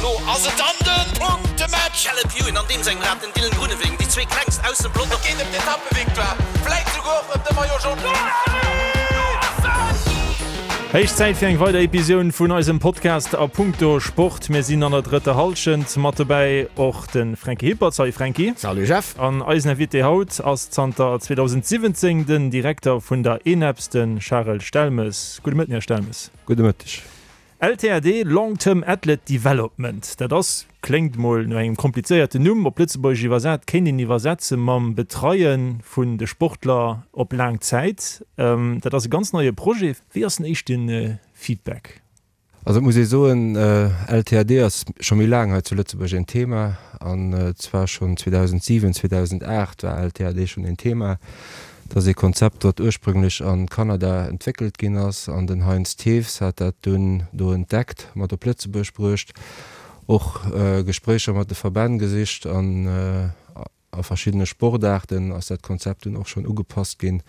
Elo ass et dann de Punktematch! Caleb Ewan an deem sengem Rad, den Dylan Groenewegen, déi zwee klengst aus dem Pelotong. Et geet ëm d'Etappevictoire, vläit souguer och ëm de Maillot Jaune. Héich Zäit fir eng weider Episioun vun eisem Podcast A Punkto Sport. Mir sinn an der drëtter Hallschent. Mat dobäi och de Franky Hippert. Salut Franky. Salut Jeff. An eisen Invité haut ass zanter 2017 den Direkter vun der ENEPS, de Charel Stelmes. Gudde Mëtten, Här Stelmes. Gudde Mëtteg. LTAD, Long Term Athlete Development, dat ass, kléngt mol no engem komplizéierten Numm, op Lëtzebuergesch iwwersat kéint een iwwersetze mam Betreie vun de Sportler op laang Zäit. Dat ass e ganz neie Projet. Wéi ass den éischte Feedback? Also et muss ee soen, LTAD ass scho méi laang hei zu Lëtzebuerg een Thema, an zwar schonn 2007, 2008 war LTAD schonn een Thema. Dat ass ee Konzept, wat ursprünglech a Kanada entwéckelt ginn ass, an den Heinz Thews hat dat dunn do entdeckt, mat op Lëtzebuerg bruecht, och Gespréicher mat de Verbänn gesicht an a verschiddene Sportaarten ass dat Konzept dunn och schonn ugepasst ginn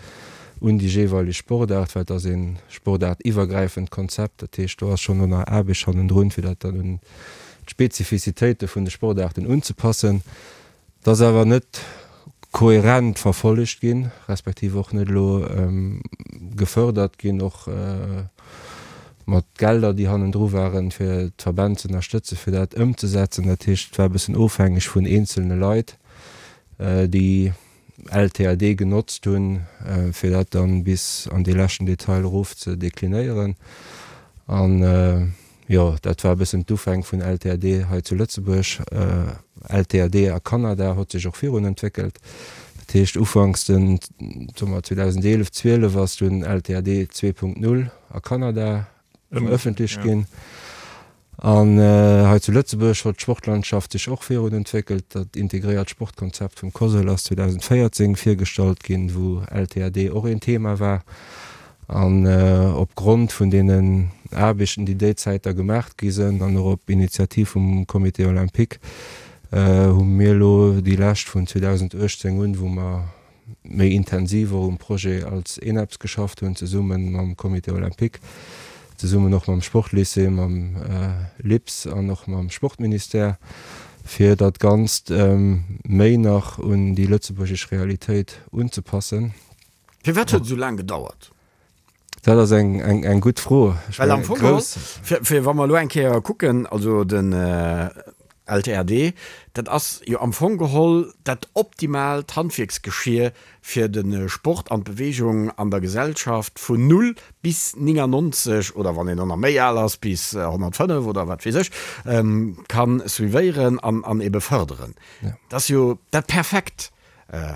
un déi jeeweileg Sportaart, well et ass ee sportaartiwwergräifend Konzept. Dat heescht, do ass schonn och nach Aarbecht hannendrun, fir dat dann un d'Spezifizitéite vun de Sportaarten unzepassen. Et ass awer net kohärent verfollegt ginn, respektiv och net elo gefördert ginn, och mat Gelder, déi hannendru waren, fir d'Verbänn ze ënnerstëtzen, fir dat ëmzesetzen. Dat heescht, et war e bëssen ofhängeg vun eenzelne Leit, déi LTAD genotzt hunn, fir dat dann bis an dee leschten Detail erof ze deklinéieren. An jo, dat war e bëssen d'Ufäng vun LTAD hei zu Lëtzebuerg. LTAD a Kanada hott sech och virun entwéckelt. Dat heescht, ufanks den, soe mer 2011, 12 ass dunn LTAD 2.0 a Kanada verëffentlecht ginn. An hei zu Lëtzebuerg huet d'Sportlandschaft sech och virun entwéckelt. Dat integréiert Sportkonzept vum COSL ass 2014 virgestallt ginn, wou LTAD och een Thema war. An op Grond vun deenen Aarbechten, déi déi Zäit da gemaacht gi sënn, an och op Initiativ vum Comité olympique, hu mir elo déi lescht vun 2018 un, wou mer méi intensiv och um Projet als ENEPS geschafft hunn, zesumme mam Comité olympique, zesummen och mam Sportlycée, mam LIPS an och mam Sportministère, fir dat Ganzt méi nach un déi lëtzebuergesch Realitéit unzepassen. Firwat huet et esou laang gedauert? Dat ass eng, eng, eng gutt Fro. Ech Well am Fong geholl, fir, fir wa mer elo eng Kéier kucken, also den LTRD, dat ass jo am Fong geholl dat optimaalt Handwierksgeschier fir de Sport an d'Beweegung an der Gesellschaft vun null bis 99 oder wann een och nach méi al ass bis 105 oder wat weess ech, ka suivéieren an, an ebe fërderen. Dat ass jo dat perfekt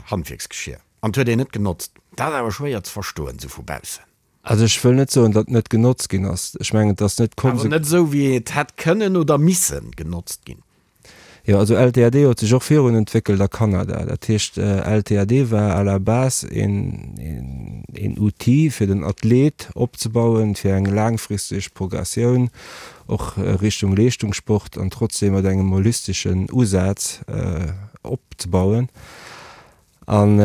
Handwierksgeschier. An 't huet een net genotzt. Dat ass awer schwéier ze verstoen, sou vu baussen. Also ech wëll net soen, datt net genotzt ginn ass. Ech mengen, et ass net konse. Awer net esou, wéi et hätt kënnen oder missen genotzt ginn. Jo, also LTAD huet sech och virun entwéckelt a Kanada. Dat heescht, LTAD war à la base een, een Outil, fir den Athlet opzebauen, fir eng laangfristeg Progressioun och Richtung Leeschtungssport an trotzdem mat engem holisteschen Usaz opzebauen. An,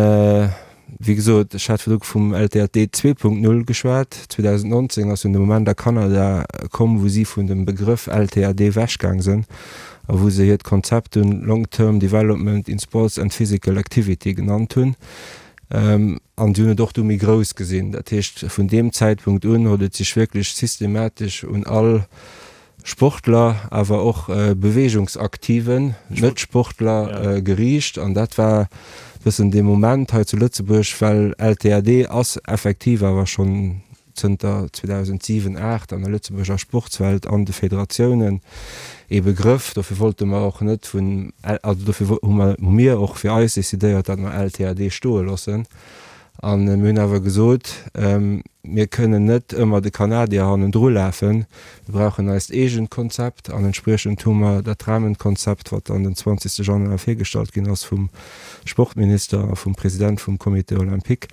wéi gesot, ech hat virdru vum LTAT 2.0 geschwat. 2019 ass dunn de Moment a Kanada komm, wou si vun dem Begrëff LTAD ewechgaang sënn a wou se hiert Konzept dunn Long Term Development in Sports and Physical Activity genannt hunn. An si hunn et och du méi grouss gesinn. Dat heescht, vun deem Zäitpunkt un huet et sech wierklech systematesch un all Sportler, awer och Beweegungsaktiven, Net-Sportler geriicht. An dat war bëssen dee Moment hei zu Lëtzebuerg, well LTAD ass effektiv awer schonn zënter 2007, 8 an der Lëtzebuerger Sportswelt an de Federatiounen ee Begrëff. Dofir wollte mer och net vun, also dofir hu mer, hu mir och fir eis decidéiert, datt mer LTAD stoe loossen. A mir hunn awer gesot, mir kënnen net ëmmer de Kanadier hannendru lafen, mir brauchen eist eegent Konzept. An entspriechend hu mer dat Rahmenkonzept, wat dann den 20. Januar virgestallt ginn ass vum Sportminister a vum President vum Comité olympique,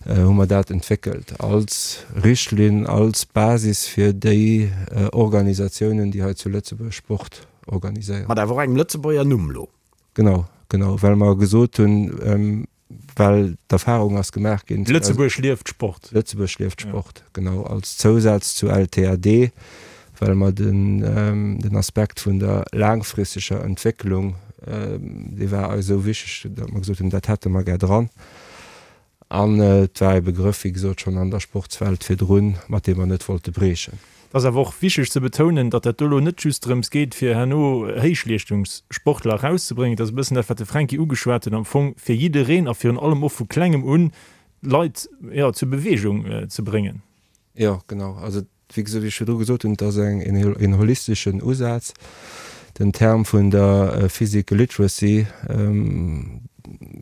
hu mer dat entwéckelt als Richtlinn, als Basis fir déi Organisatiounen, déi hei zu Lëtzebuerg Sport organiséieren. Mat awer och engem Lëtzebuerger Numm elo. Genau, genau, well mer gesot hunn, Well d'Erfahrung ass gemaach ginn. Lëtzebuerg lieft Sport. Lëtzebuerg lieft Sport, genau, als Zousaz zu LTAD. Well mer den Aspekt vun der laangfristeger Entwécklung, dee war eis esou wichteg, datt mer gesot hunn, dat hätte mer gär dran. An et war e Begrëff, wéi gesot, schonn an der Sportswelt virdrun, mat deem mer net wollte briechen. Et ass awer och wichteg ze betounen, datt dat do elo net just drëms geet, fir herno Héichleeschtungssportler erauszebréngen. Et ass e bëssen dat, wat de Fränki ugeschwat huet, am Fong fir jiddereen a virun allem och vu Klengem un d'Leit, jo, zur Beweegung ze bréngen. Jo, genau. Also Wéi gesot, wéi ech virdru gesot hunn, et ass eng, een holisteschen Usaz. Den Term vun der Physical Literacy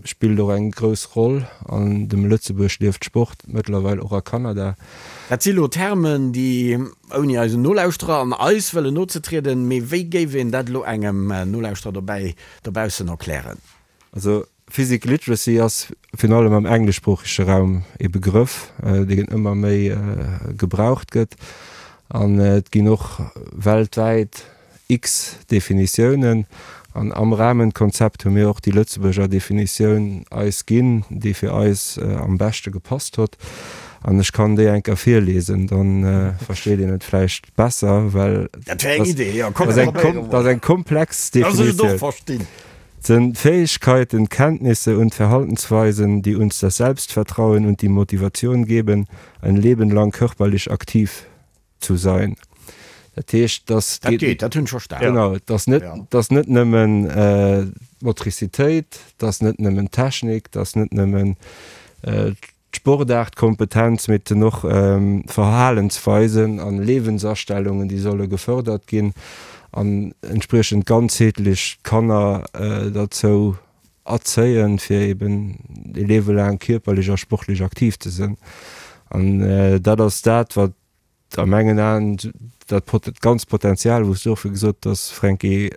spillt och eng grouss Roll an dem Lëtzebuerg lieft Sport, mëttlerweil och a Kanada. Dat si lo Termen, déi, ouni eisen Nolauschterer an eis wëllen nozetrieden, mee wéi géif een dat elo engem Nolauschterer dobäi dobaussen erklären? Also Physical Literacy ass virun allem am engleschsproochege Raum ee Begrëff, deen ëmmer méi gebraucht gëtt. An et ginn och weltwäit x Definitiounen. An am Rahmenkonzept hu mir och déi Lëtzebuerger Definitioun eis ginn, déi fir eis am beschte gepasst hott. An ech kann déi eng Kéier virlesen, da versteet een et vläicht besser, well dat ass eng komplex Definitioun. Sind Fähigkeiten, Kenntnisse und Verhaltensweisen, die uns das Selbstvertrauen und die Motivation geben, ein Leben lang körperlich aktiv zu sein. Dat heescht, dass Dat geet, dat hunn ech verstanen. Genau, et ass net, et ass net nëmmen d'Motricitéit, et ass net nëmmen d'Technik, et ass net nëmmen D'Sportaartkompetenz, mee et sinn och Verhalensweisen an Lebensastellungen, déi solle gefördert ginn an entspriechend ganzheetlech d'Kanner derzou erzéien, fir eben e Liewe laang kierperlech a sportlech aktiv ze sinn. An dat ass dat, wat A mengen Aen dat ganzt Potenzial, wou s du och gesot hues, Franky,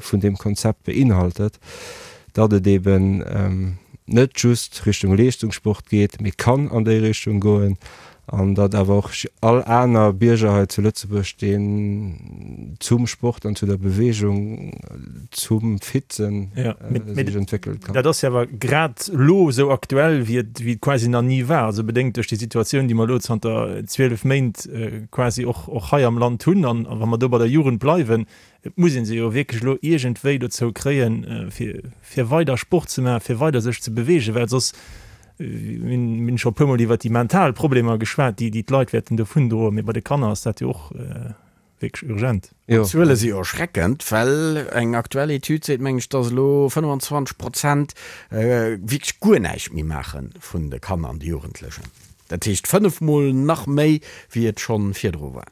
vun deem Konzept beinhaltet, datt et eben net just Richtung Leeschtungssport geet, mee kann an déi Richtung goen an datt awer och all aner Bierger hei zu Lëtzebuerg, deen zum Sport an zu der Beweegung, zum fit sinn, sech entwéckele kann. Dat ass jo awer grad elo esou aktuell, wéi et wéi et quasi nach ni war, also bedéngt duerch déi Situatioun, déi mer elo zanter 12 Méint quasi och och hei am Land hunn. An wa mer do bei der Jugend bleiwen, et muss ee se jo wierklech elo iergendwéi dozou kréien, fir fir weider Sport ze maachen, fir weider sech ze beweegen, well soss, mir hunn scho e puermol iwwert déi mental Problemer geschwat, déi déi d'Leit wäerten dovundroen, mee bei de Kanner ass dat jo och wierklech urgent. Jo. D'Zuele si jo erschreckend, well eng aktuell Etüd seet, mengen ech, dass elo 25 Prozent wierklech guer näischt méi maache vun de Kanner an de Jugendlechen. Dat heescht fënnefmol nach méi, wéi et scho virdru war.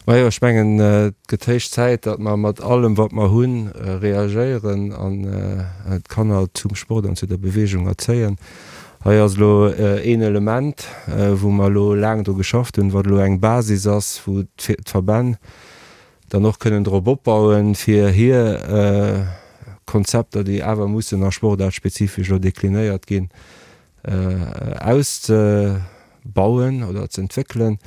Majo, ech mengen, et gëtt héich Zäit, datt mer mat allem, wat mer hunn, reagéieren an d'Kanner zum Sport an zu der Beweegung erzéien. Hei ass elo een Element, wou mer elo laang dru geschafft hunn, wat elo eng Basis ass, wou d'Verbänn dann och kënnen drop opbauen, fir hir Konzepter, déi awer mussen a sportaartspezifesch elo deklinéiert ginn, auszebauen oder ze entwéckelen.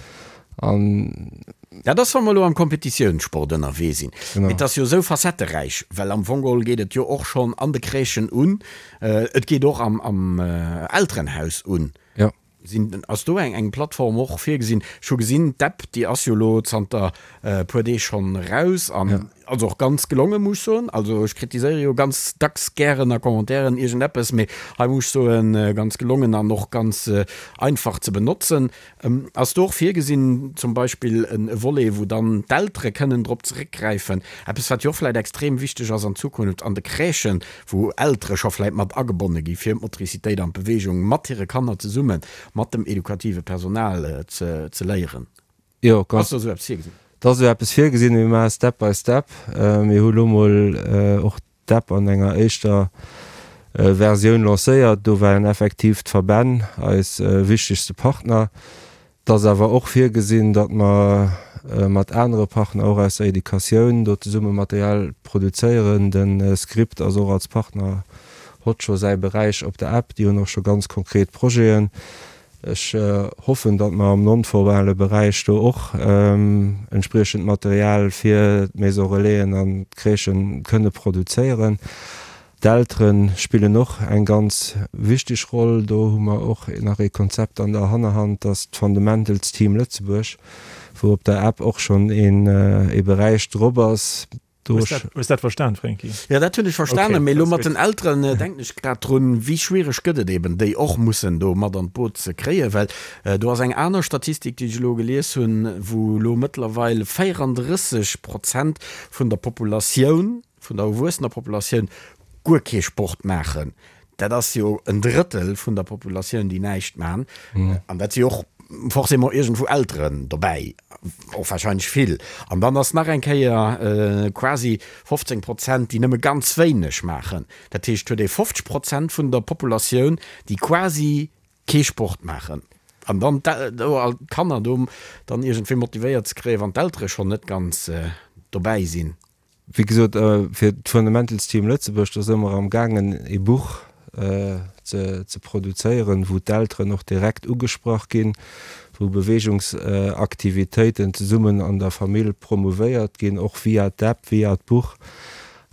An. Dat ass, wa mer elo am Kompetitiounssport ënnerwee sinn. Mee et ass jo esou facetteräich, well am Fong geholl geet et jo och schonn an de Crèchen un, et geet och am Elterenhaus un. Jo. Sinn, ass do eng Plattform och virgesinn? Ech hu gesinn, d'App, déi ass jo elo zanter e puer Deeg schonn eraus an also och ganz gelongen, muss ech soen. Also ech kritiséiere jo ganz dacks gären a Commentairen iergendeppes, mee hei muss ech soen, ganz gelongen an och ganz einfach ze benotzen. Ass do och virgesinn zum Beispill e Volet, wou dann d'Eltere kënnen drop zeréckgräifen? Eppes, wat jo och vläicht extrem wichteg ass an Zukunft an de Crèchen, wou Eltere scho vläicht mat agebonne gi fir d'Motricitéit an d'Beweegung mat hire Kanner zesumme mat dem edukative Personal ze léieren. Jo, ganz. Ass do esou eppes virgesinn? Et ass esou eppes virgesinn, mee mir maache Step by Step. Mir hu lo mol och d'App an enger éischter Versioun lancéiert. Do waren effektiv d'Verbänn eis wichtegste Partner. Et ass awer och virgesinn, datt mer mat anere Partner, och aus der Educatioun, do zesumme Material produzéieren. De Script ass och als Partner, hott scho säi Beräich op der App. Déi hunn och scho ganz konkret Projeten. Ech hoffen, datt mer am non-formale Beräich do och entspriechend Material fir d'Maison Relaisen an d'Crèchen kënne produzéieren. D'Eltere spillen och eng ganz wichteg Roll. Do hu mer och nach ee Konzept an der Hannerhand, dass d'Fundamentals Team Lëtzebuerg, Wou op der App och schonn een ee Beräich drop ass. Do Hues dat, hues dat verstan, Franky? Jo, dat hunn ech verstanen, mee elo mat den Elteren denken ech grad drun, wéi schwiereg gëtt et eben, déi och mussen do mat an d'Boot ze kréien, well do ass eng aner Statistik, déi ech elo gelies hunn, wou elo mëttlerweil 34 Prozent vun der Populatioun, vun der erwuessener Populatioun guer kee Sport maachen. Dat ass jo en Drëttel vun der Populatioun, déi näischt maachen. An dat si och forcément iergendwou Elteren dobäi, och warscheinlech vill. An dann ass nach eng Kéier quasi 15 Prozent, déi nëmme ganz wéineg maachen. Dat heescht, huet ee 50 Prozent vun der Populatioun, déi quasi kee Sport maachen. An dann d'Kanner do dann iergendwéi motivéiert ze kréien, wann d'Eltere schonn net ganz dobäi sinn. Wéi gesot, fir d'Fundamentals Team Lëtzebuerg, do si mer am gaangen ee Buch ze produzéieren, wou d'Elteren och direkt ugesprach ginn, wou Beweegungsaktivitéiten zesummen an der Famill promouvéiert ginn, och via d'App, via d'Buch.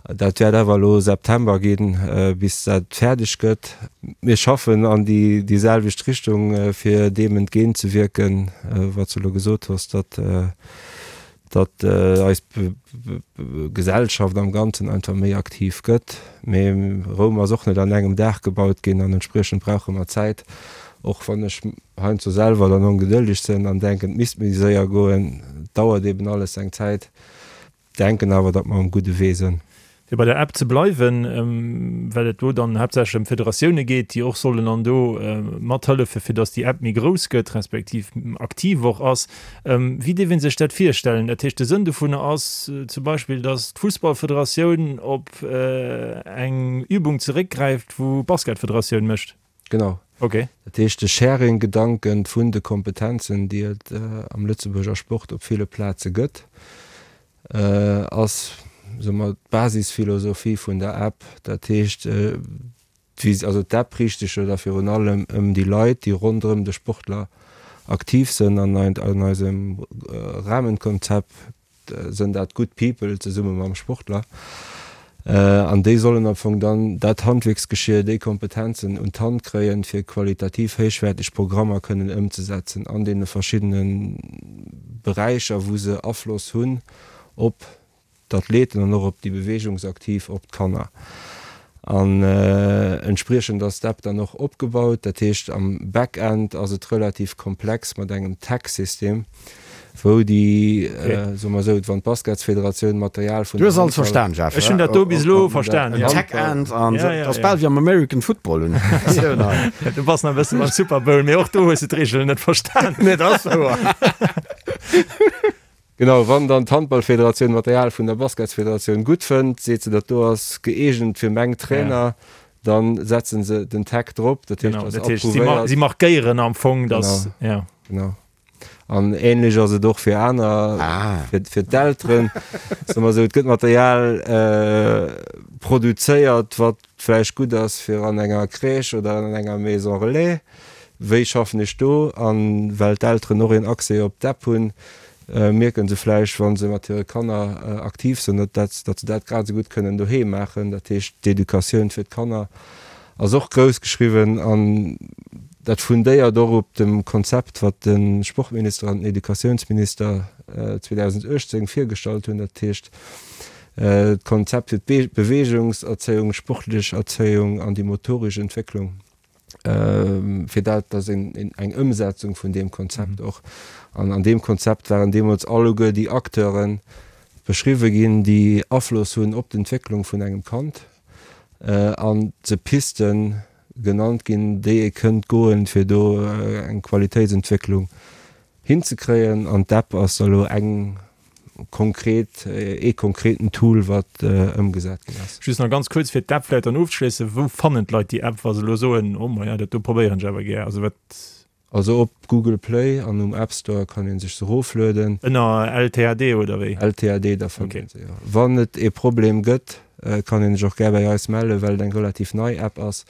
Dat wäert awer elo September ginn, bis dat fäerdeg gëtt. Mir schaffen an déi selwecht Richtung, fir deem entgéintzewierken, wat s du elo gesot hues, datt datt eis Gesellschaft am Ganzen einfach méi aktiv gëtt. Mee Roum ass och net an engem Dag gebaut ginn an entspriechend brauche mer Zäit. Och wann ech heiansdo selwer dann ongedëlleg sinn an denken, et misst méi séier goen, et dauert eben alles seng Zäit. Denken awer, datt mer um gudde Wee sënn. Fir bei der App ze bleiwen, well et do dann haaptsächlech ëm d'Federatioune geet, déi och sollen an do mathëllefen, fir datt déi App méi grouss gëtt, respektiv aktiv och ass. Wéi dierf ee sech dat virstellen? Dat heescht, de Sënn dovunner ass zum Beispill, datt d'Fussballfederatioun op eng Übung zeréckgräift, wou d'Basketfederatioun mécht? Genau. Ok. Dat heescht, de Sharing-Gedanken vun de Kompetenzen, déi et am Lëtzebuerger Sport op ville Plaze gëtt, ass, soe mer, d'Basisphilosophie vun der App. Dat heescht, also d'App riicht sech jo da virun allem ëm déi Leit, déi ronderëm de Sportler aktiv sënn. An an eisem Rahmenkonzept sënn dat good people zesumme mam Sportler. An déi sollen am Fong dann dat Handwierksgeschier, déi Kompetenzen un d'Hand kréien, fir qualitativ héichwäerteg Programmer kënnen ëmzesetzen an deene verschiddene Beräicher, wou se Afloss hunn op d'Athleten an och op déi Beweegungsaktiv, op d'Kanner. An entspriechend ass d'App dann och opgebaut. Dat heescht, am Backend ass et relativ komplex mat engem Tag-System, wou déi, soe mer esou, wann d'Basketsfederatioun Material vun Du hues alles verstan, Jeff. Ech hunn dat do bis elo verstan, jo. Tag-End an dat ass bal wéi am American Football, hunn ech d'Impressioun hei. Du bass nach e bësse beim Super Bowl, mee och do hues de d'Reegelen net verstan. Nee, dat ass wouer. Genau, wann dann d'Handballfederatioun Material vun der Basketsfederatioun gutt fënnt, seet se, dat do ass gëeegent fir meng Trainer, dann setzen se den Tag drop, dat heescht, ass approuvéiert. Si markéieren am Fong, dass, ja. Genau. An ähnlech ass et och fir aner, fir d'Elteren, soe mer esou, et gëtt Material produzéiert, wat vläicht gutt ass fir an enger Crèche oder an enger Maison relais. Wéi schaffen ech do? An well d'Elteren och een Accès op d'App hunn, mierken se vläicht, wa se mat hire Kanner aktiv sinn, datt se dat grad esou gutt kënnen doheem maachen. Dat heescht, d'Educatioun fir d'Kanner ass och grouss geschriwwen an dat fundéiert och op dem Konzept, wat de Sportminister an den Educatiounsminister 2018 virgestallt hunn, dat heescht d'Konzept fir d'Beweegungserzéiung, d'sportlech Erzéiung an déi motoresch Entwécklung. fir dat ass een eng Ëmsetzung vun deem Konzept och. An an deem Konzept waren deemools alleguer déi Acteure beschriwwe ginn, déi Afloss hunn op d'Entwécklung vun engem Kand an se Piste genannt ginn, déi ee kënnt goen, fir do eng Qualitéitsentwécklung hinzekréien. An d'App ass da elo eng konkret, ee konkreten Tool, wat ëmgesat ginn ass. Just nach ganz kuerz, fir d'App vläicht dann ofzeschléissen, Wou fannen d'Leit déi App, wa se elo soen, oh maja, dat do probéieren ech awer gär? Also wat. Also op Google Play an um App Store kann ee sech se eroflueden. Ënner LTAD oder wéi? LTAD, da fënnt een se, jo. Wann et ee Problem gëtt, kann een sech och gär bäi eis mellen, well et eng relativ nei App ass.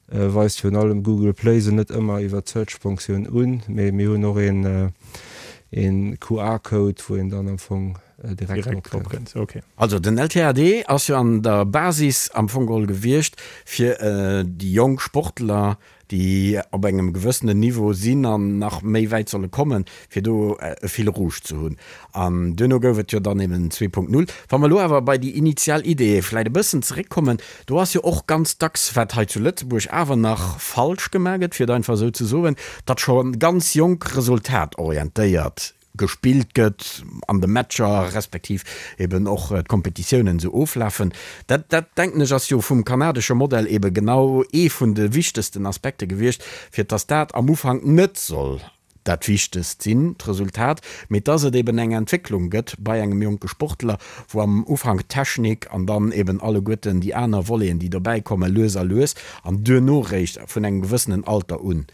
Weist virun allem Google Play se net ëmmer iwwer d'Search-Fonctioun un, mee mir hunn och een QR-Code, wou een dann am Fong direkt drop kënnt. Also den LTAD ass jo an der Basis am Fong geholl gewiescht, fir déi jonk Sportler. déi op engem gewëssenen Niveau sinn an nach méi wäit solle kommen, fir do e Fil rouge ze hunn. An duerno gouf et jo dann eben 2.0. Wa mer elo awer bei déi initial Idee vläicht e bëssen zeréckkommen, do ass jo och ganz dacks, wat hei zu Lëtzebuerg awer nach falsch gemaach gëtt, fir et einfach esou ze soen, datt scho ganz jonk resultatorientéiert gespillt gëtt an de Matcher, respektiv eben och d'Kompetitiounen esou oflafen. Dat, dat denken ech, ass jo vum kanadesche Modell eben genau ee vun de wichtegsten Aspekte gewiescht, fir dass dat am Ufank net soll dat Wichtegst sinn, d'Resultat, mee dass et eben eng Entwécklung gëtt bei engem jonke Sportler, wou am Ufank d'Technik an dann eben alleguerten déi aner Voleten, déi dobäi kommen, lues a lues an duerno réischt vun engem gewëssenen Alter un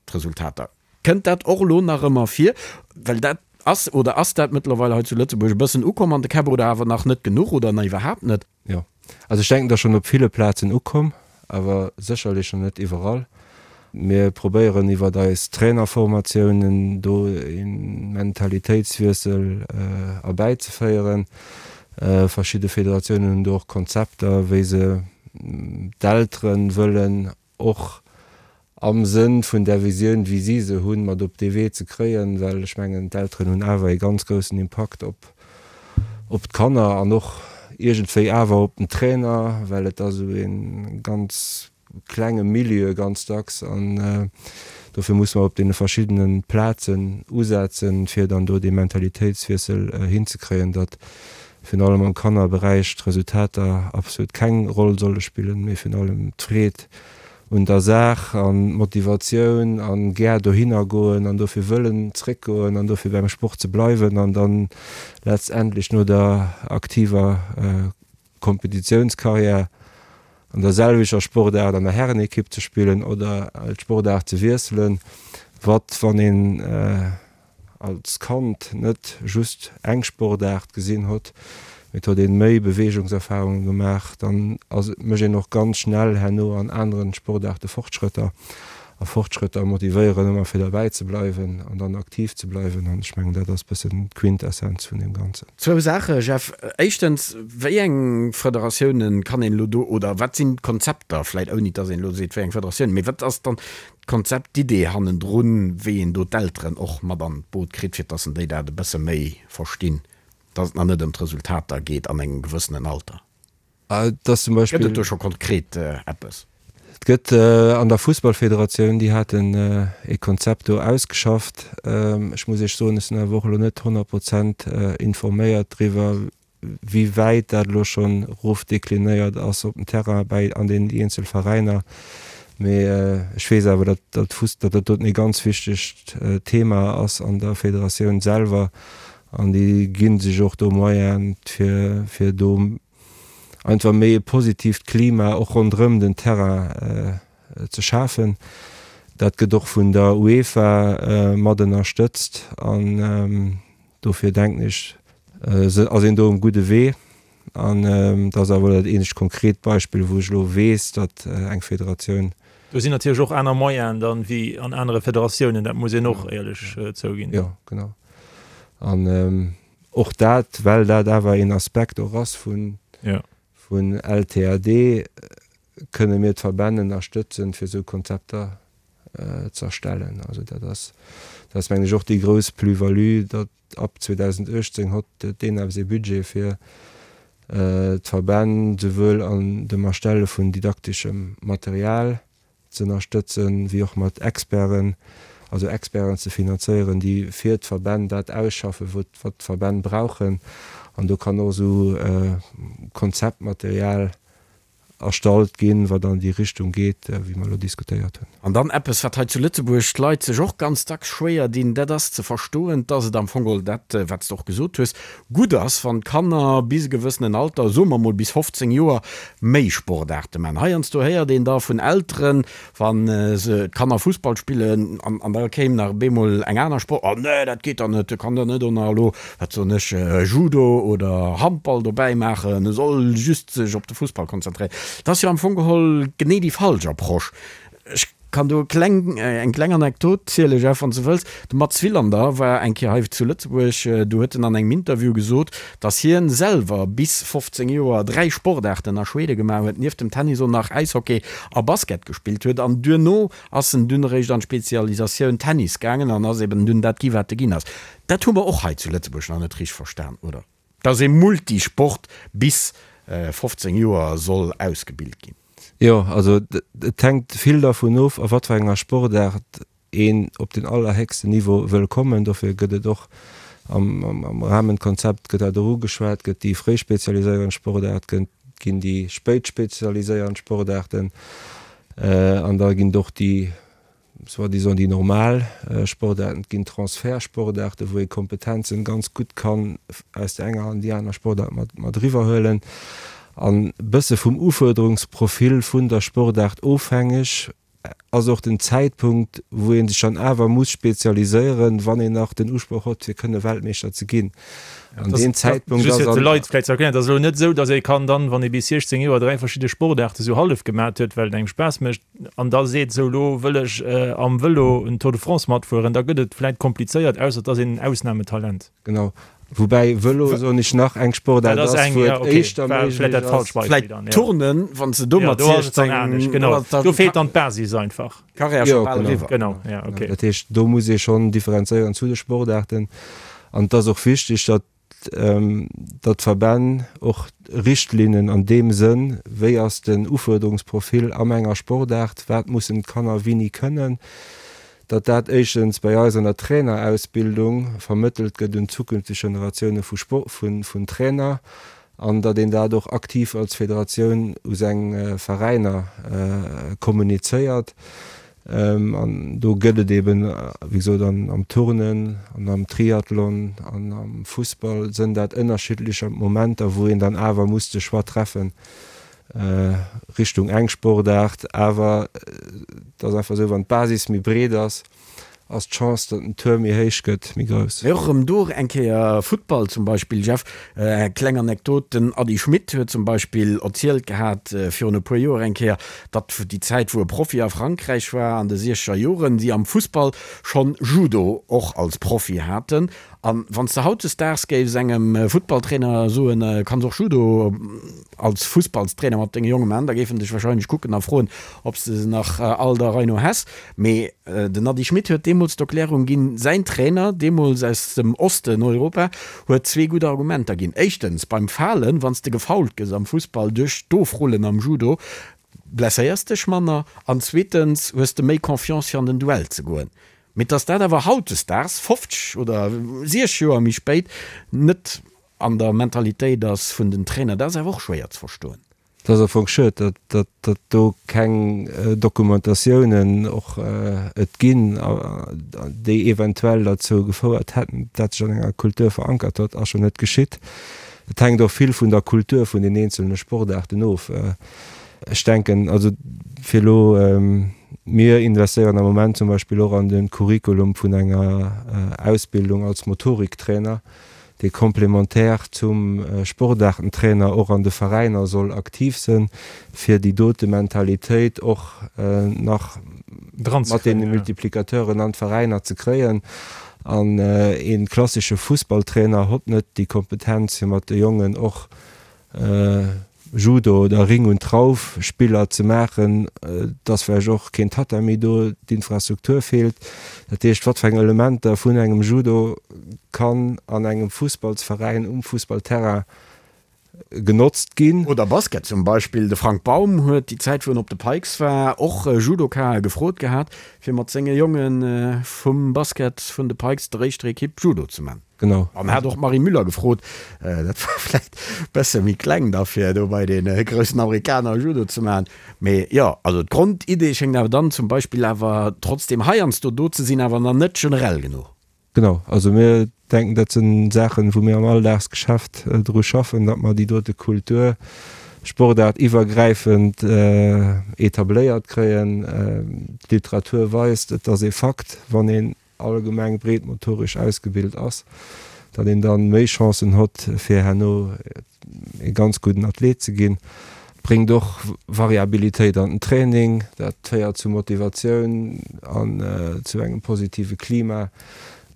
d'Resultater. Kënnt dat och elo nach ëmmer vir? Well dat ass, oder ass dat mëttlerweil hei zu Lëtzebuerg e bëssen ukomm an de Käpp oder awer nach net genuch oder nach iwwerhaapt net? Jo, also ech denken, et ass schonn op ville Plazen ukomm, awer sécherlech nach net iwwerall. Mir probéieren iwwert eis Trainerformatiounen do e Mentalitéitswiessel erbäizeféieren. Verschidde Federatiounen hunn do och Konzepter, wéi se d'Eltere wëllen och am Sënn vun där Visioun, wéi si se hunn, mat op dee Wee ze kréien, well ech mengen, d'Elteren hunn awer ee ganz groussen Impakt op op d'Kanner an och iergendwéi awer op den Trainer, well et ass esou ee ganz klenge Milieu ganz dacks an dofir musse mer op deene verschiddene Plazen usetzen, fir dann do dee Mentalitéitswiessel hinzekréien, datt virun allem am Kannerberäich d'Resultater absolut keng Roll solle spillen, mee virun allem d'Freed un der Saach an d'Motivatioun an gär dohinner goen an dofir wëllen zréckgoen an dofir beim Sport ze bleiwen an dann letztendlech no der aktiver Kompetitiounskarriär an der selwechter Sportaart an der Herrenekipp ze spillen oder d'Sportaart ze wiesselen, wat wann een als Kand net just eng Sportaart gesinn hott, mee et hott een méi Beweegungserfahrungen gemaach, dann ass mécht een och ganz schnell herno an aneren Sportaarte Fortschrëtter. A Fortschrëtter motivéieren ëmmer fir derbäi ze bleiwen an dann aktiv ze bleiwen an ech mengen dat ass bëssen d'Quintessenz vun deem Ganzen. Zwou Saache Jeff. Éischtens, wéi eng Federatiounen kann een elo do, oder wat sinn d'Konzepter, vläit ouni dass een elo seet wéi eng Federatiounen, mee wat ass dann d'Konzept, d'Idee hannendrun, wéi een do d'Elteren och mat an d'Boot kritt, fir dass en déi dat e bësse méi verstinn, dass et nach net ëm d'Resultater geet an engem gewëssenen Alter? Et ass zum Beispill. Gëtt et do scho konkret eppes? Et gëtt an der Fussballfederatioun, déi haten ee Konzept do ausgeschafft. Ech muss Iech soen, ech sinn awer och elo net 100 Prozent informéiert driwwer, wéi wäit dat elo schonn erofdeklinéiert ass op den Terrain bäi an den eenzel Veräiner. Mee ech weess awer, datt dat Fuss, datt dat doten ee ganz wichtegt Thema ass an der Federatioun selwer an déi gi sech och do Moyene fir, fir do einfach méi e positiivt Klima och ronderëm den Terrain ze schafen. Dat gëtt och vun der UEFA mat ënnerstëtzt an Dofir denken ech, ass een do um gudde Wee. An dat ass awer dat eenzegt konkret Beispill, wou ech elo weess, datt eng Federatioun. Do sinn natierlech och aner Moyenen dann wéi an anere Federatiounen, dat muss een och éierlech zouginn. Jo, genau. An och dat, well dat awer een Aspekt och ass vun LTAD, kënne mir d'Verbänn ënnerstëtzen, fir esou Konzepter ze erstellen. Also dat ass, dat ass mengen ech och déi grouss Plus-value, datt ab 2018 hott d'ENAPS ee Budget fir d'Verbänn souwuel an dem Erstelle vun didakteschem Material ze ënnerstëtzen, wéi och mat Experten, also Experten ze finanzéieren, déi fir d'Verbänn dat ausschaffen, wat d'Verbänn brauchen. An do kann och esou Konzeptmaterial erstallt ginn, wat an déi Richtung geet, wéi mer elo diskutéiert hunn. An dann eppes, wat hei zu Lëtzebuerg d'Leit sech och ganz dacks schwéier dinn, dat ass ze verstoen, dass et am Fong geholl dat, wat s de och gesot hues, gutt ass, wann d'Kanner bis e gewëssenen Alter, soe mer mol bis 15 Joer, méi Sportaarte maachen. Heiansdo héiert een da vun Elteren, Wa se, d'Kanner Fussball spillen an an da kéim nach bemol eng aner Sport, oh nee, dat geet dann net, e kann dann net och nach elo, wat soen ech, Judo oder Handball dobäi maachen, e soll just sech op de Fussball konzentréieren. Dat ass jo am Fong geholl genee déi falsch Approche. Ech. Kann do kleng, eng kleng Anekdot ziele Jeff, wann s de wëlls. De Mats Wilander war eng Kéier hei zu Lëtzebuerg, do huet en an engem Interview gesot, datt hien selwer bis 15 Joer 3 Sportaarten a Schwede gemaach huet, nieft dem Tennis och nach Äishockey a Basket gespillt huet an duerno ass en dunn eréischt an d'Spezialisatioun Tennis gaangen an ass eben dunn dat gi wat e ginn ass. Dat hu mer och hei zu Lëtzebuerg nach net richteg verstan, oder? Datt ee Multisport bis 15 Joer soll ausgebilt ginn. Jo, also et hänkt vill dervun of, a wat fir enger Sportaart een op den allerhéchsten Niveau wëll kommen. Dofir gëtt et och am Rahmenkonzept gëtt dat och ugeschwat, gëtt déi fréi spezialiséierend Sportaart, ginn déi spéit spezialiséierend Sportaarten an da ginn et och déi soi-disant déi normal Sportaarten, et ginn Transfertsportaarten, wou ee Kompetenzen ganz gutt kann aus der enger an déi aner Sportaart mat mat eriwwerhuelen. An e bësse vum Ufuerderungsprofil vun der Sportaart ofhängeg ass och den Zäitpunkt, wou ee sech dann awer muss spezialiséieren, wann een nach den Usproch hott, fir kënne Weltmeeschter ze ginn. An deen Zäitpunkt ass. Just fir de Leit vläicht ze erklären, et ass elo net esou, datt ee kann dann, wann ee bis 16 Joer 3 verschidde Sportaarte sou hallef gemat huet, well et engem Spaass mécht, an da seet, sou elo wëll ech am Vëlo en Tour de France matfueren, da gëtt et vläit komplizéiert, ausser et ass een en Ausnametalent. Genau. Woubäi Vëlo, soen ech, nach eng Sportaart ass, wou et éischter méiglech ass. Vläit Turnen, wann s de do mat 16. Genau, do feelt dann d'Basis einfach. Karriär scho bal eriwwer. Genau, ja, okay. Dat heescht, do muss ee schonn differenzéieren zu de Sportaarten. An et ass och wichteg, datt datt d'Verbänn och Richtlinnen an deem Sënn, wéi ass den Ufuerderungsprofil am enger Sportaart, wat mussen d'Kanner wéini kënnen, datt dat éischtens bei eis an der Trainerausbildung vermëttelt gëtt un zukünfteg Generatioune vu vun Trainer an datt een dat och aktiv als Federatioun u seng Veräiner kommunizéiert. An do gëtt et eben, wéi gesot, am Turnen an am Triathlon an am Fussball sënn dat ënnerschiddlecher Momenter, wou een dann awer muss de Choix treffen Richtung eng Sportaart. Awer et ass einfach esou, wann d'Basis méi breet ass, ass d'Chance, datt den Tour méi héich gëtt, méi grouss. Mee och erëm do eng Kéier Futtball zum Beispill, Jeff, eng kleng Anekdot, den Ady Schmit huet zum Beispill erzielt gehat virun e puer Joer eng Kéier, datt déi Zäit wou e Profi a Frankräich war an de siechzeger Joren, si am Fussball schonn Judo och als Profi haten. An wann s de hautdesdaags géifs engem Futtballtrainer soen, kanns och Judo als Fussballstrainer mat denge Jonge man, da géif en dech wahrscheinlech kucken a froen, ob s de se nach all der Rei no häss. Mee den Ady Schmit huet deemools d'Erklärung ginn, säin Trainer, deemools aus dem Osten Europa, huet zwee gutt Argumenter ginn. Éischtens, beim Falen, wann s de gefoult gëss am Fussball duerch d'Ofrullen am Judo, blesséiers dech manner. An zweetens hues de méi Confiance fir an den Duell ze goen. Mee dass dat awer hautdesdaags, 50 oder 60 Joer méi spéit, net an der Mentalitéit ass vun den Trainer, dat ass awer och schwéier ze verstoen. Et ass am Fong schued, datt do keng Dokumentatiounen och et ginn, déi eventuell derzou gefouert hätten, datt sech an enger Kultur verankert huet. Ass jo net geschitt. Et hänkt och vill vun der Kultur vun den eenzelne Sportaarten of. Ech denken, also fir elo, mir investéieren am Moment zum Beispill och an de Curriculum vun enger Ausbildung als Motoriktrainer, dee complémentaire zum Sportaartentrainer och an de Veräiner soll aktiv sënn, fir déi dote Mentalitéit och nach mat deene Multiplicateuren an d'Veräiner ze kréien. An ee klassesche Fussballtrainer hott net déi Kompetenz, fir mat de Jongen och Judo oder Ring und Trauf Spiller ze maachen, et ass vläicht och keen Tatami do, d'Infrastruktur feelt. Dat heescht, wat fir eng Elementer vun engem Judo kann an engem Fussballsveräin um Fussballterrain genotzt ginn? Oder Basket zum Beispill. De Frank Baum huet déi Zäit wou en op de Pikes war och Judokae gefrot gehat, fir mat senge Jonge vum Basket vun de Pikes, der éischter Ekipp, Judo ze man. Genau. An hat och d'Marie Müller gefrot, dat war vläit bësse méi kleng da fir do bei dee groussen Amerikaner Judo ze maachen. Mee jo, also d'Grondidee schéngt awer dann zum Beispill awer trotzdem heiansdo do ze sinn, awer nach net generell genuch. Genau, also mir denken, dat sinn Saachen, wou mir am Alldagsgeschäft dru schaffen, datt mer déi dote Kultur Sportaart iwwergräifend etabléiert kréien. D'Literatur weist, et ass ee Fakt, wann een allgemeng breet motoresch ausgebilt ass, datt een dann méi Chancen hott fir herno ee ganz gudden Athlet ze ginn. bréngt och Variabilitéit an den Training, dat féiert zu Motivatioun an zu engem positive Klima,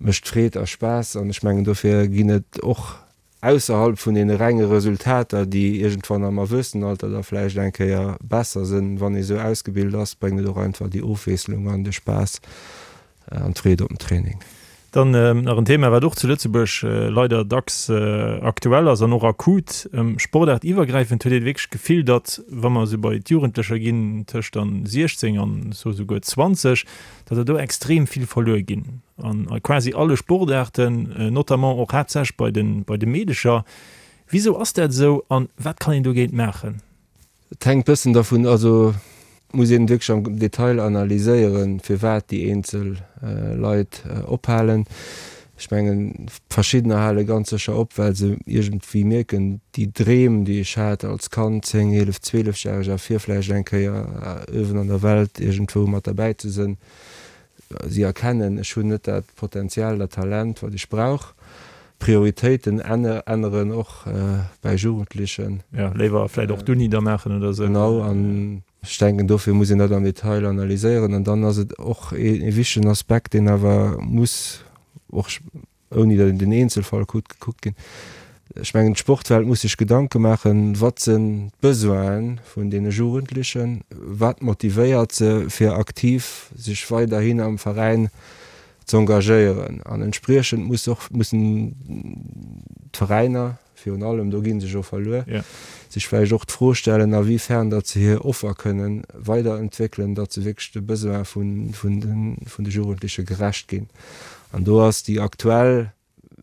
mécht Freed a Spaass an ech mengen dofir ginn et och ausserhalb vun deene renge Resultater, déi iergendwann am Erwuessenenalter da vläicht eng Kéier besser sinn, wann ee sou ausgebilt ass, bréngt et och einfach déi Ofwiesslung an de Spaass an d'Freed op den Training. Dann nach en Thema, wat och zu Lëtzebuerg leider dacks aktuell ass an och akut. Sportaartiwwergräifend huet ee wierklech d'Gefill, datt, wa mer esou bei d'Jugendlecher ginn, tëscht dann 16 an esouguer 20, datt der do extrem vill verluer ginn an a quasi alle Sportaarten, notamment och haaptsächlech bei de bei de Meedecher. Wisou ass dat esou an wat kann een dogéint maachen? Et hänkt bëssen dervun, also et muss een wierklech am Detail analyséieren, firwat déi eenzel Leit ophalen. Ech mengen, verschiddener hale ganz sécher op, well se iergendwéi mierken, déi Dreem, déi ech hat als Kand, 10, 11, 12 järeg, a fir vläicht eng Kéier uewen an der Welt iergendwou mat derbäi ze sënn, si erkennen, ech hunn net dat Potenzial, dat Talent, wat ech brauch. Prioritéiten änneren och bäi Jugendlechen. Jo, léiwer vläicht och d'Uni da maachen oder esou. Genau, an ech denken, dofir muss een dat am Detail analyséieren. An dann ass et och ee wichtegen Aspekt, deen awer muss och, ouni datt een den Eenzelfall kuckt, gekuckt ginn. Ech mengen, d'Sportwelt muss sech Gedanke maachen, Wat sinn d'Besoine vun deene Jugendlechen? Wat motivéiert se, fir aktiv sech weiderhin am Veräin z'engagéieren? An entspriechend muss och, mussen d'Veräiner virun allem, do gi se jo verluer, sech vläicht och d'Fro stellen, a wéi fern datt se hir Offer kënnen weiderentwéckelen, datt se wierklech de Besoin vun de Jugendleche gerecht ginn. An do ass déi aktuell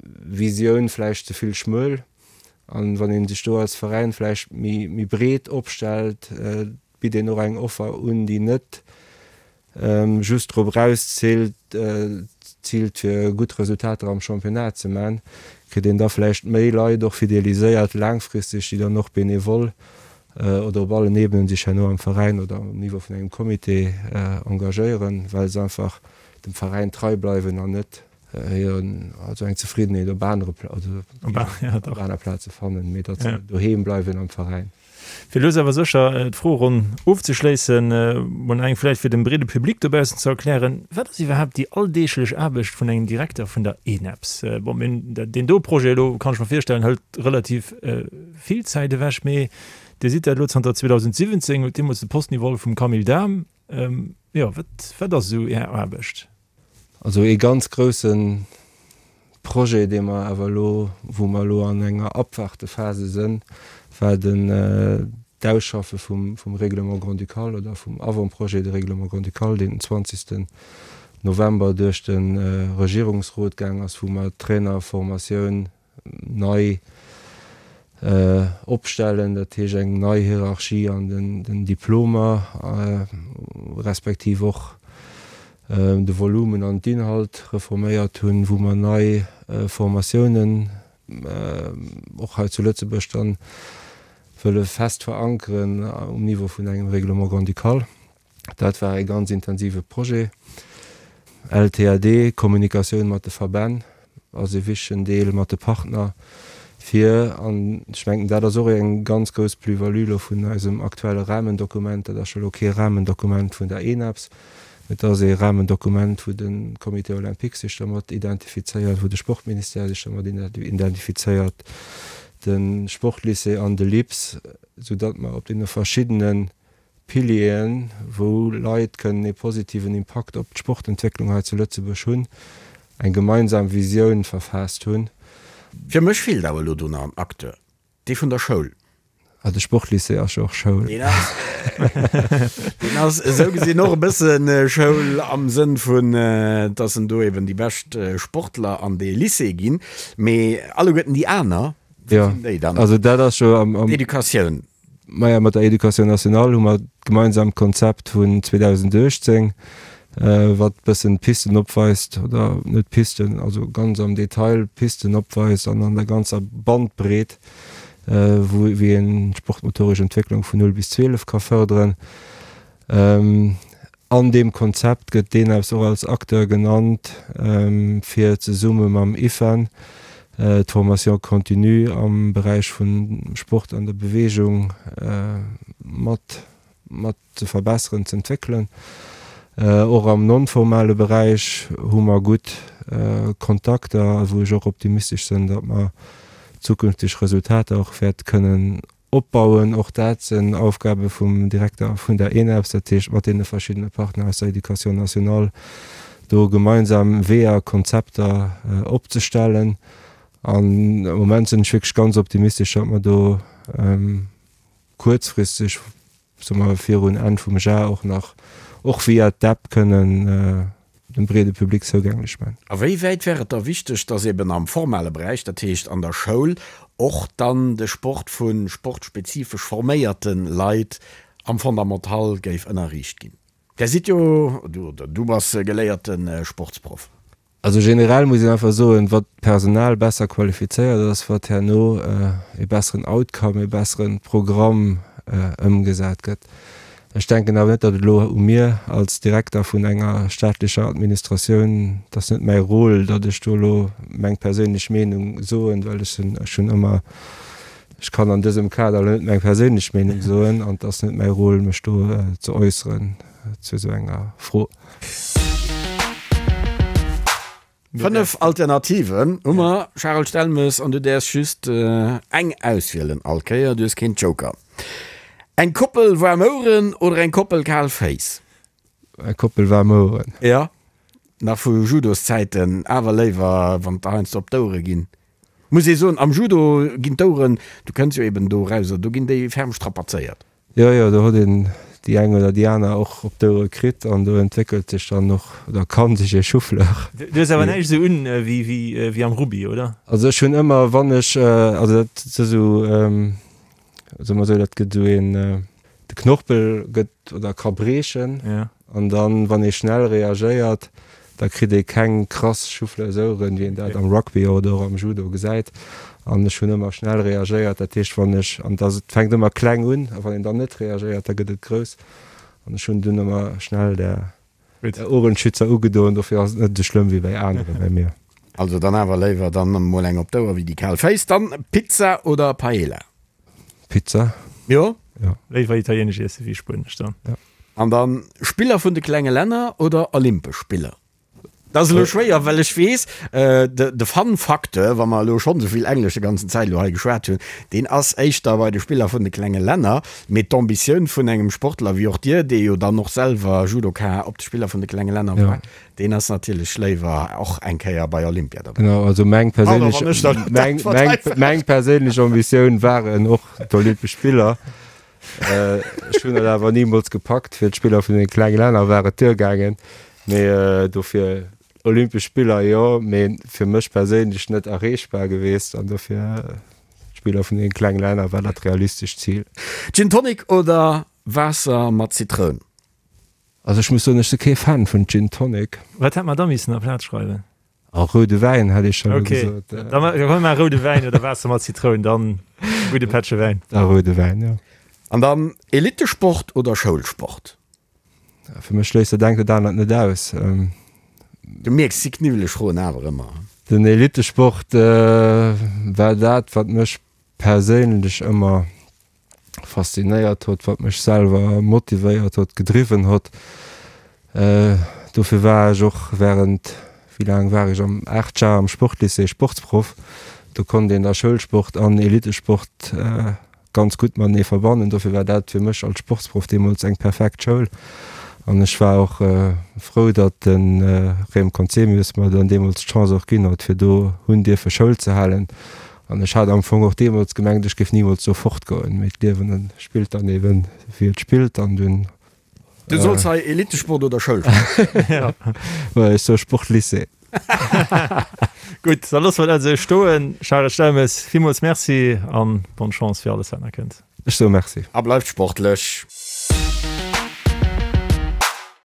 Visioun vläicht ze vill schmuel. An wann ee sech do als Veräin vläicht méi breet opstellt, bitt een och eng Offer un, déi net just drop erausziilt, ziilt fir gutt Resultater am Championnat ze man, kritt een da vläicht méi Leit och fideliséiert laangfristeg, déi dann och benevol oder op allen Ebenen sech herno am Veräin oder um Niveau vun engem Comité engagéieren, well se einfach dem Veräin trei bleiwen an net hiren, also eng Zefriddenheet op anere, also op aner Plaze fannen, mee datt se doheem bleiwen am Veräin. Fir lues awer sécher d'Froeronn ofzeschléissen, mol nach eng vläicht fir dem breede Public dobaussen ze erklären, Wat ass iwwerhaapt déi alldeeglech Aarbecht vun engem Direkter vun der ENEPS? Bon, mir hunn deen do Projet elo, kann ech mer virstellen, hëlt relativ vill Zäit ewech, mee Dir sidd dat elo zanter 2017, hutt deemools de Posten iwwerholl vum Camille Dahm. Jo, wat, wat ass esou Är Aarbecht? Also ee ganz grousse Projet, dee mer awer elo, wou mer elo an enger Abwartephase sënn, war den d'Ausschaffe vum, vum Règlement grand-ducal oder vum Avant-projet de règlement grand-ducal, deen den 20. November duerch de Regierungsrot gaang ass, wou mer d'Trainerformatioun nei opstellen, dat heescht eng nei Hierarchie an den Diplomer, respektiv och de Volumen an d'Inhalt reforméiert hunn, wou mer nei Formatiounen och hei zu Lëtzebuerg dann wëlle fest verankeren um Niveau vun engem Règlement grand-ducal. Dat war e ganz intensive Projet. LTAD, Kommunikatioun mat de Verbänn ass e wichtegen Deel, mat de Partner, fir, an ech mengen, dat ass och eng ganz grouss Plus-value elo vun eisem aktuelle Rahmendokument, dat ass jo elo kee Rahmendokument vun der ENAPS, mä et ass ee Rahmendokument, wou de Comité olympique sech dermat identifizéiert, wou de Sportministère sech dermat identifizéiert, de Sportlycée an de LIPS, soudatt mer op deene verschiddene Pilieren, wou Leit kënnen ee positiven Impakt op d'Sportentwécklung hei zu Lëtzebuerg hunn, eng gemeinsam Visioun verfaasst hunn. Fir mech feelt awer elo do nach en Acteur, dee vun der Schoul. Ah, de Sportlycée ass jo och Schoul. Deen ass, deen ass esou gesinn och e bësse Schoul am Sënn vun, dass en do eben déi bescht Sportler an dee Lycée ginn. Mee alleguerten déi aner, wou sinn déi dann? Also dat ass jo am. D'Educatioun. Maja, mat der Education nationale hu mer d'gemeinsamt Konzept vun 2018, wat e bëssen d'Pisten opweist, oder net d'Pisten, also ganz am Detail d'Pisten opweist an an der ganzer Bandbreet, wou, wéi een d'sportmotoresch Entwécklung vun 0 bis 12 ka fërderen. An deem Konzept gëtt d'ENEPS och als Acteur genannt, fir zesumme mam IFEN d'Formation continue am Beräich vum Sport an der Beweegung. mat mat ze verbesseren, ze entwéckelen. Och am non-formale Beräich hu mer gutt Kontakter, wou ech och optimistesch sinn, datt mer zukünfteg Resultater och wäerte kënnen opbauen. Och dat sinn Aufgabe vum Direkter vun der ENEPS, dat heescht mat deene verschiddene Partner aus der Éducation nationale do gemeinsam Weeër, Konzepter opzestellen. An am Moment sinn ech wierklech ganz optimistesch, datt mer do kuerzfristeg, soe mer virun Enn vum Jar och nach, och via d'App kënnen dem breede Public zougänglech man. A wéi wäit wär et da wichteg, dass eben am formale Beräich, dat heescht an der Schoul, och dann de Sport vu sportspezifesch forméierte Leit am Fondamental géif ënnerriicht ginn? Där sidd jo, oder du bass geléierte Sportsproff. Also generell muss een einfach soen, wat d'Personal besser qualifizéiert ass, wat herno e besseren Outcome, e bessere Programm ëmgesat gëtt. Ech denken awer net, datt et elo u mir als Direkter vun enger staatlecher Administratioun, et ass net mäi Rôle, datt ech do elo meng perséinlech Meenung soen, well ech sinn, ech hunn ëmmer, ech kann an dësem Kader elo net meng perséinlech Meenung soen an et ass net mäi Rôle, mech do ze äusseren zu esou enger Fro. 5 Alternativen hu mer, Charel Stelmes, an du däerfs just eng auswielen all Kéier, du hues keen Joker. Eng Koppel waarm Oueren oder eng Koppel kal Féiss? Eng Koppel waarm Oueren. Jo, nach vu Judoszäiten, awer léiwer wann et heiansdo op d'Ouere ginn. Muss ee soen, am Judo ginn d'Oueren, du kënns jo eben do eraus, do ginn déi ferm strapazéiert. Jo, jo, do huet een déi eng oder déi aner och op d'Ouere kritt an do entwéckelt sech dann och, oder kann sech ee Souffleur. Du hues awer näischt esou un wéi am Rugby, oder? Also ech hunn ëmmer, wann ech, also dat ass esou, soe mer esou, dat gëtt esou een, de Knorpel gëtt oder ka briechen. An dann, wann ee schnell reagéiert, da kritt ee keng krass Souffleursoueren, wéi een dat am Rugby oder och am Judo gesäit. An ech hunn ëmmer schnell reagéiert, dat heescht, wann ech, an et fänkt ëmmer kleng un, a wann een dann net reagéiert, da gëtt et grouss. An ech hunn dunn ëmmer schnell där Ohrenschützer ugedoen, dofir ass et net esou schlëmm wéi bäi aneren, bäi mir. Also dann awer léiwer dann emol eng op d'Ouer wéi déi kal Féiss. Dann Pizza oder Paella? Pizza. Jo? Jo. Léiwer italienesch iesse wéi spuenesch dann. Jo. An dann Spiller vun de klenge Länner oder Olympesch Spiller? Dat ass elo schwéier, well ech weess, de Fun-Facteur, wa mer elo schonn esou vill Englesch de ganzen Zäit elo hei geschwat hunn, deen ass éischter bei de Spiller vun de klenge Länner. Mee d'Ambitioun vun engem Sportler wéi och dir, dee jo dann och selwer Judoka op de Spiller vun de klenge Länner war, deen ass natierlech léiwer och eng Kéier bei Olympia dobäi. Genau, also meng perséinlech, meng, meng, meng perséinlech Ambitioun waren och d'Olympesch Spiller. Ech hunn et awer nimools gepackt. Fir d'Spiller vun den klenge Länner war et duergaangen. Mee dofir Olympesch Spiller jo, mee fir mech perséinlech net erreechbar geweest. An dofir d'Spiller vun den klenge Länner war dat realistescht Zil. Gin Tonic oder Waasser mat Zitroun? Also ech muss soen, ech si kee Fan vun Gin Tonic. Wat hätt mer da missen aplaz schreiwen? A roude Wäin hätt ech scho gesot. Okay, da huele mer roude Wäin oder Waasser mat Zitroun, dann gudde Pättche Wäin. Da roude Wäin, jo. An dann Elittesport oder Schoulsport? Fir mech schléisst dat engt dat anert net aus. Du mierks, si kniwweleg Froen awer ëmmer. Den Elittesport war dat, wat mech perséinlech ëmmer faszinéiert hott, wat mech selwer motivéiert hott, gedriwwen hott. Dofir war ech och während, wéi laang war ech am, 8 Jar am Sportlycée Sportsproff. Do konnt een da Schoulsport an Elitesport ganz gutt matenee verbannen. Dofir war dat fir mech als Sportsproff deemools eng perfekt Schoul. An ech war och frou, datt de Rem Conzemius mer dann deemools d'Chance och ginn hott, fir do hunn dierfe Schoul ze halen. An ech hat am Fong och deemools gemengt, ech géif nimools do fortgoen, mee d'Liewen spillt dann eben, wéi et spillt an dunn. Du solls hei Elitesport oder Schoulsport? Jo, ech soe Sportlycée. Gutt, da loosse mer dat esou stoen. Charel Stelmes, villmools Merci an bonne Chance fir alles, wat nach kënnt. Ech soe Merci. A bleift sportlech!